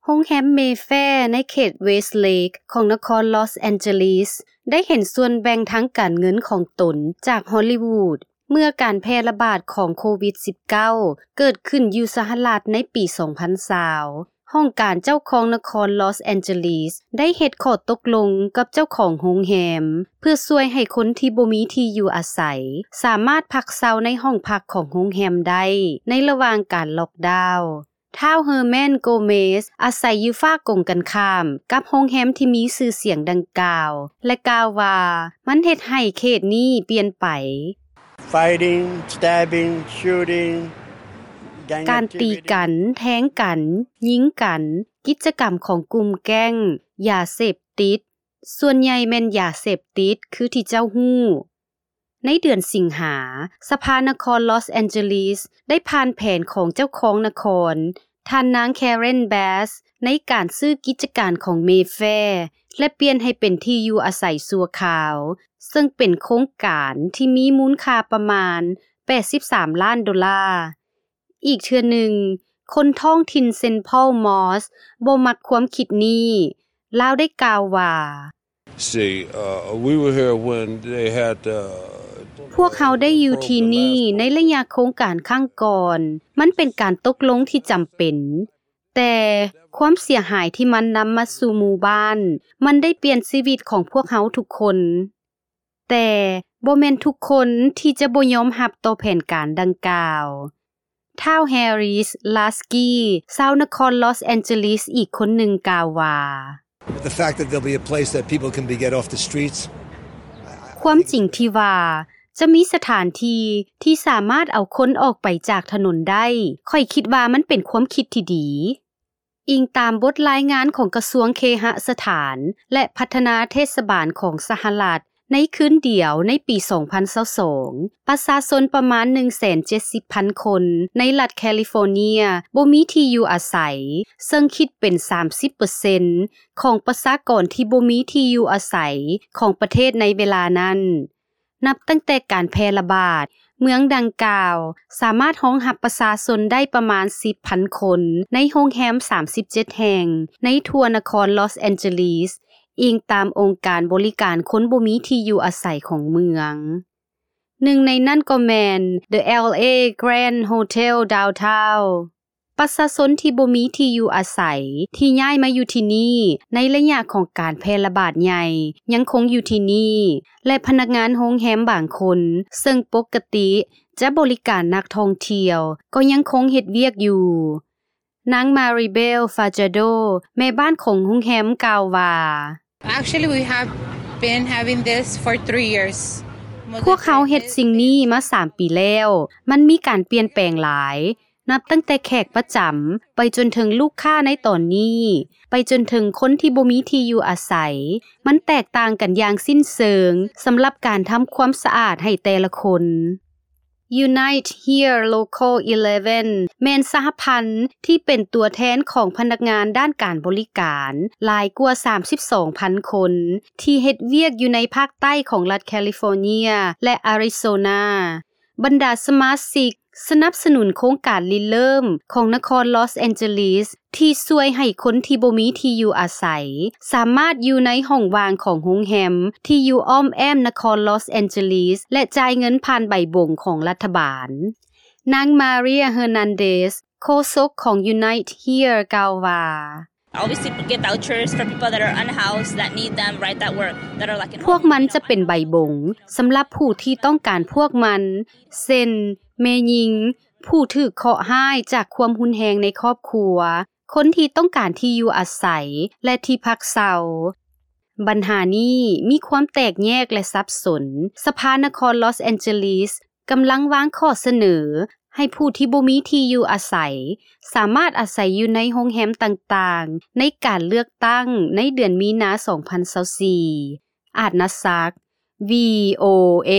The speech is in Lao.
ໂຮງແຮມ Mayfair ໃນເຂດ Westlake ຂອງນະຄອນ Los Angeles ໄດ້ເຫັນສ່ວນແບ່ງທາງການເງິນຂອງຕົນຈາກ Hollywood ເມື່ອການແຜ່ລະບາດຂອງໂຄວິດ-19 ເກີດຂຶ້ນຢູ່ສະຫະລັດໃນປີ ສອງພັນຊາວ. ຫ້ອງການເຈົ້າຄອງນະຄອນ Los Angeles ໄດ້ເຮັດຂໍ້ຕົກລົງກັບເຈົ້າຂອງໂຮງແຮມ ເພື່ອຊ່ວຍໃຫ້ຄົນທີ່ບໍ່ມີທີ່ຢູ່ອາໄສ ສາມາດພັກເຊົາໃນຫ້ອງພັກຂອງໂຮງແຮມໄດ້ ໃນລະຫວ່າງການລັອກດາວ. ທ້າວ Herman Gomez ອາໄສຢູ່ຝາກົງກັນຂ້າມກັບໂຮງແຮມທີ່ມີຊື່ສຽງດັ່ງກ່າວ ແລະ ກ່າວວ່າ ມັນເຮັດໃຫ້ເຂດນີ້ປ່ຽນໄປ. Fighting, stabbing, shooting, gang ການຕີກັນ, activity. ແທງກັນ, ຍິງກັນ, ກິດຈະກຳຂອງກຸ່ມແກ້ງ, ຢາເສບຕິດ, ສ່ວນໃຫຍ່ແມ່ນຢາເສບຕິດ ຄືທີ່ເຈົ້າຮູ້. ໃນເດືອນສິງຫາ, ສະພານະຄອນ Los Angeles ໄດ້ຜ່ານແຜນຂອງເຈົ້າຄອງນະຄອນ ທ່ານນາງ Karen Bass ໃນການຊື້ກິດຈະການຂອງ Mayfair ແລະ ປ່ຽນໃຫ້ເປັນທີ່ຢູ່ອາໄສຊົ່ວຄາວ, ເຊິ່ງເປັນໂຄງການທີ່ມີມູນຄ່າປະມານ ແປດສິບສາມລ້ານໂດລາ. ອີກເທື່ອໜຶ່ງ, ຄົນທ້ອງຖິ່ນ Saint Paul Moss ບໍ່ມັກຄວາມຄິດນີ້. ລາວໄດ້ກ່າວວ່າ See, uh, we were here when they had, uh, ພວກເຮົາໄດ້ຢູ່ທີ່ນີ້ໃນໄລຍະໂຄງການຄັ້ງກ່ອນ. ມັນເປັນການຕົກລົງທີ່ຈຳເປັນ, ແຕ່ຄວາມເສຍຫາຍທີ່ມັນນຳມາສູ່ໝູ່ບ້ານ, ມັນໄດ້ປ່ຽນຊີວິດຂອງພວກເຮົາທຸກຄົນ. ແຕ່ບໍ່ແມ່ນທຸກຄົນທີ່ຈະບໍ່ຍອມຮັບຕໍ່ແຜນການດັ່ງກ່າວ. ທ້າວ Harris Lasky ຊາວນະຄອນ Los Angeles ອີກຄົນໜຶ່ງກ່າວວ່າ The fact that there'll be a place that people can be get off the streets. ຄວາມຈິງທີ່ວ່າຈະມີສະຖານທີ່ທີ່ສາມາດເອົາຄົນອອກໄປຈາກຖະໜົນໄດ້, ຂ້ອຍຄິດວ່າມັນເປັນຄວາມຄິດທີ່ດີ. ອີງຕາມບົດລາຍງານຂອງກະຊວງເຄຫະສະຖານ ແລະ ພັດທະນາເທດສະບານຂອງສະຫະລັດ, ໃນຄືນດຽວໃນປີສອງພັນຊາວສອງ ປະຊາຊົນປະມານໜຶ່ງແສນເຈັດສິບພັນຄົນໃນລັດແຄລິຟໍເນຍບໍ່ມີທີ່ຢູ່ອາໄສ, ເຊິ່ງຄິດເປັນສາມສິບເປີເຊັນຂອງປະຊາກອນທີ່ບໍ່ມີທີ່ຢູ່ອາໄສຂອງປະເທດໃນເວລານັ້ນ. ນັບຕັ້ງແຕ່ການແຜ່ລະບາດ, ເມືອງດັ່ງກ່າວສາມາດຮອງຮັບປະຊາຊົນໄດ້ປະມານສິບພັນຄົນ ໃນໂຮງແຮມສາມສິບເຈັດແຫ່ງໃນທົ່ວນະຄອນ Los Angeles, ອີງຕາມອົງການບໍລິການຄົນບໍ່ມີທີ່ຢູ່ອາໄສຂອງເມືອງ. ໜຶ່ງໃນນັ້ນກໍແມ່ນ The LA Grand Hotel Downtown. ປະຊາຊົນທີ່ບໍ່ມີທີ່ຢູ່ອາໄສທີ່ຍ້າຍມາຢູ່ທີ່ນີ້ໃນໄລຍະຂອງການແຜ່ລະບາດໃຫຍ່ຍັງຄົງຢູ່ທີ່ນີ້ ແລະ ພະນັກງານໂຮງແຮມບາງຄົນ ເຊິ່ງປົກກະຕິຈະບໍລິການນັກທ່ອງທ່ຽວ ກໍຍັງຄົງເຮັດວຽກຢູ່. ນາງ Maribel Fajardo ແມ່ບ້ານຂອງໂຮງແຮມກ່າວວ່າ Actually, we have been having this for three years. ພວກເຮົາເຮັດສິ່ງນີ້ມາສາມປີແລ້ວ. ມັນມີການປ່ຽນແປງຫຼາຍ. ນັບຕັ້ງແຕ່ແຂກປະຈຳ ໄປຈົນເຖິງລູກຄ້າໃນຕອນນີ້ ໄປຈົນເຖິງຄົນທີ່ບໍ່ມີທີ່ຢູ່ອາໄສ, ມັນແຕກຕ່າງກັນຢ່າງສິ້ນເຊີງສຳລັບການທຳຄວາມສະອາດໃຫ້ແຕ່ລະຄົນ. Unite Here Local eleven ແມ່ນສະຫະພັນທີ່ເປັນຕົວແທນຂອງພະນັກງານດ້ານການບໍລິການຫຼາຍກວ່າສາມສິບສອງພັນຄົນ ທີ່ເຮັດວຽກຢູ່ໃນພາກໃຕ້ຂອງລັດແຄລິຟໍເນຍ ແລະ ອາຣິໂຊນາ. ບັນດາສະມາຊິກສະໜັບສະໜູນໂຄງການລິເລີ່ມຂອງນະຄອນລອສແອນເຈີລີສ ທີ່ຊ່ວຍໃຫ້ຄົນທີ່ບໍ່ມີທີ່ຢູ່ອາໄສ ສາມາດຢູ່ໃນຫ້ອງວ່າງຂອງໂຮງແຮມທີ່ຢູ່ອ້ອມແອ້ມນະຄອນລອສແອນເຈີລີສ ແລະ ຈ່າຍເງິນຜ່ານໃບບົງຂອງລັດຖະບານ. ນາງ Maria Hernandez ໂຄສົກຂອງ Unite Here ກ່າວວ່າ Always to get vouchers for people that are unhoused, that need them, right, that work, that are, like, in ພວກມັນຈະເປັນໃບບົງສຳລັບຜູ້ທີ່ຕ້ອງການພວກມັນ ເຊັ່ນ ແມ່ຍິງ, ຜູ້ຖືກເຄາະຮ້າຍຈາກຄວາມຮຸນແຮງໃນຄອບຄົວ, ຄົນທີ່ຕ້ອງການທີ່ຢູ່ອາໄສ ແລະ ທີ່ພັກເຊົາ. ບັນຫານີ້ມີຄວາມແຕກແຍກ ແລະ ສັບສົນ. ສະພານະຄອນລອສແອນເຈີລີສ ກຳລັງວາງຂໍ້ສະເໜີໃຫ້ຜູ້ທີ່ບໍ່ມີທີ່ຢູ່ອາໄສ ສາມາດອາໄສຢູ່ໃນໂຮງແຮມຕ່າງໆ ໃນການເລືອກຕັ້ງໃນເດືອນມີນາ ສອງພັນຊາວສີ່. ອາດນາສັກ ວີໂອເອ.